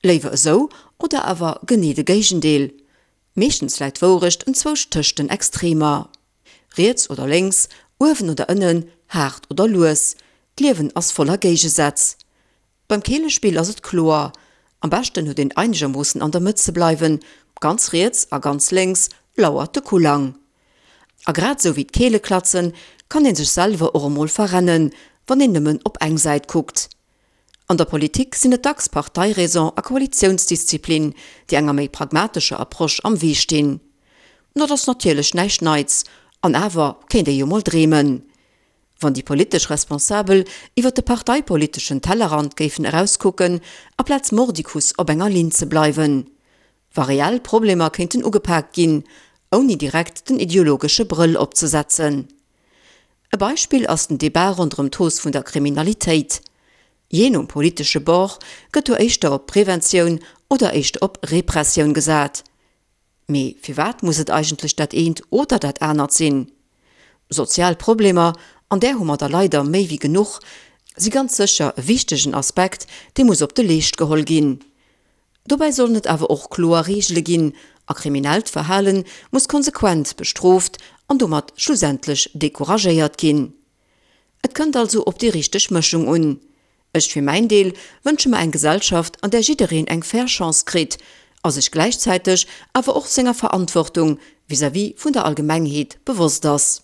Léiwer esou oder awer genee de Géigendeel? Meeschtens läit d'Wourecht enzwousch tëscht den Extremer. Riets oder lénks, uewen oder ënnen, haart oder lues, d'Liewen ass voller Géigesätz. Beim Keelespill ass et kloer, am beschten huet een einegermoossen an der Mëtt ze bleiwen, ganz riets a ganz lénks lauert de Kullang. A grad esou wéi d'Keeleklatzen kann ee sech selwer och emol verrennen, wann een nëmmen op eng Säit kuckt. An der Politik sinn et dacks Parteiräson a Koalitiounsdisziplin, déi enger méi pragmatescher Approche am Wee stinn. Dat ass natierlech näischt Neits, an awer kéint ee jo mol dreemen, wann déi politesch Responsabel iwwer de parteipoliteschen Tellerrand géifen erauskucken, aplaz mordicus op enger Linn ze bleiwen. Wa reell Problemer kéinten ugepaakt ginn, ouni direkt den ideologesche Brëll opzesetzen. E Beispill ass den Debat ronderëm d'Hausse vun der Kriminalitéit. Jee nom politesche Bord gëtt do éischter op Preventioun oder éischter op Repressioun gesat. Mee firwat muss et eigentlech dat eent oder dat anert sinn? Sozial Problemer, an där hu mer der leider méi wéi genuch, si ganz sécher e wichtegen Aspekt, dee muss op de Leescht geholl ginn. Dobäi sollen et awer och kloer Reegele ginn a kriminellt Verhale muss konsequent bestrooft an domat schlussendlech decouragéiert ginn. Et kënnt also op déi richteg Mëschung un. Ech fir mäin Deel wënsche mer eng Gesellschaft, an där jiddereen eng fair Chance kritt a sech gläichzäiteg awer och senger Verantwortung vis-à-vis vun der Allgemengheet bewosst ass.